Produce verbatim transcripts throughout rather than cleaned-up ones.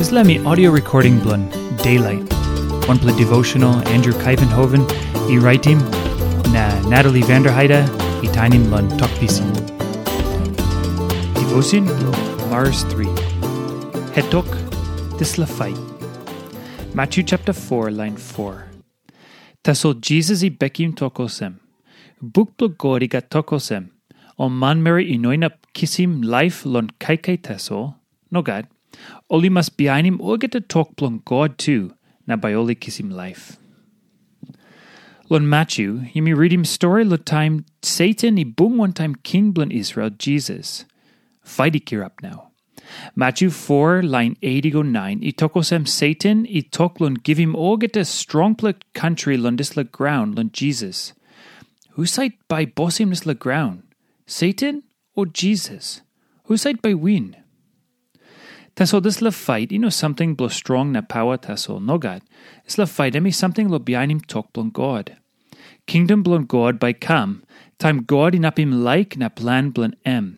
Dispela mi audio recording bilong Daylight, wanpela devotional Andrew Kaivenhoven i raitim, na Natalie Vanderheide i tainim long Tok Pisin. Devotion bilong Mars three. Het tok, dispela fight. Matthew chapter four, line four. Tasol Jisas i bekim tok olsem, "Buk bilong God i gat tok olsem, 'Ol manmeri i no inap kisim laip long kaikai tasol.' Nogat. Ol i mas bihainim olgeta tok bilong God tu, na bai ol i kisim laip." Long Matthew, yumi ritim stori long taim Satan i bung wantaim king bilong Israel, Jisas. Fait i kirap nau. Matthew four, lain eight i go nine, i tok olsem Satan i tok long givim olgeta strongpela kantri long dispela graun long Jisas. Husat bai bosim dispela graun? Satan o Jisas? Husat bai win? Tasol dispela fait i no samting bilong strong na pawa tasol, nogat. Dispela fait em i samting long bihainim tok bilong God. Kingdom bilong God bai kam, taim God inapim laik na plan bilong em.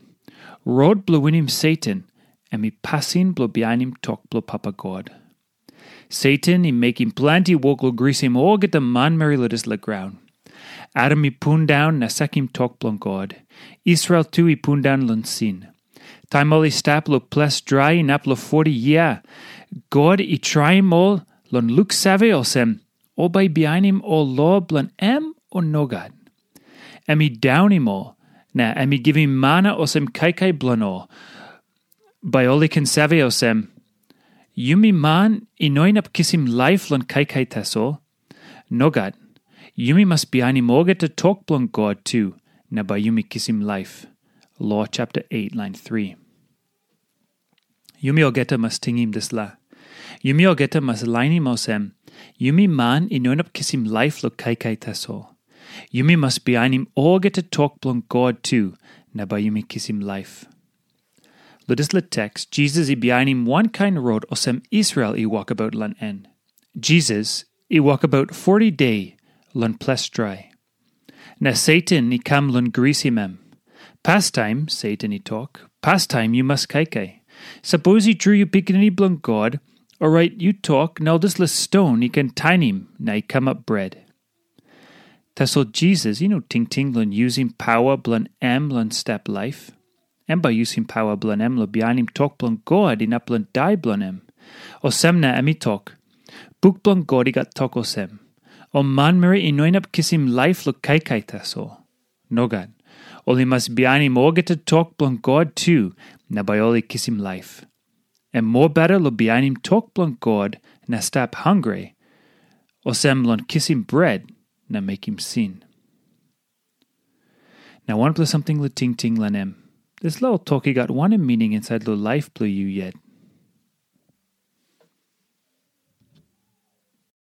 Rot bilong winim Satan, em i pasin bilong bihainim tok bilong Papa God. Satan i mekim planti wok long grisim olgeta manmeri long dispela graun. Adam i pundaun na sakim tok bilong God. Israel tu i pundaun long sin. Taim ol i stap long ples drai inap long forty yia, God i traim ol long luksave olsem, ol bai bihainim ol lo bilong em o nogat. Em i daunim ol, na em i givim mana olsem kaikai bilong ol. Bai ol i ken save olsem, yumi man i no inap kisim laip long kaikai tasol. Nogat, yumi mas bihainim olgeta tok bilong God tu, na bai yumi kisim laip. Lo chapter eight, lain three. Yumi olgeta mas tingim dispela. Yumi olgeta mas lainim olsem, yumi man i no inap kisim laip long kaikai tasol. Yumi mas bihainim olgeta tok bilong God tu, na bai yumi kisim laip. Long dispela teks, Jisas i bihainim wankain rot olsem Israel i wokabaut long en. Jisas i wokabaut forty de long ples drai. Na Satan i kam long grisim em. Pastaim, Satan i tok, pastaim yu mas kaikai. Sapos i tru yu pikinini bilong God, orait yu tok na ol dispela ston i ken tainim na i kamap bret. Tasol Jisas i no tingting long yusim pawa bilong em long stap laip. Em bai yusim pawa bilong em long bihainim tok bilong God inap long dai bilong em. Olsem na em i tok, buk bilong God i gat tok olsem, ol manmeri i no inap kisim laip long kaikai tasol. Nogat. Ol i mas bihainim olgeta tok bilong God tu, na bai ol i kisim laip. Em mobeta long bihainim tok bilong God na stap hangre, olsem long kisim bret na mekim sin. Na wanpela samting long tingting long em. Dispela ol tok i gat wanem mining insait long laip bilong yu yet?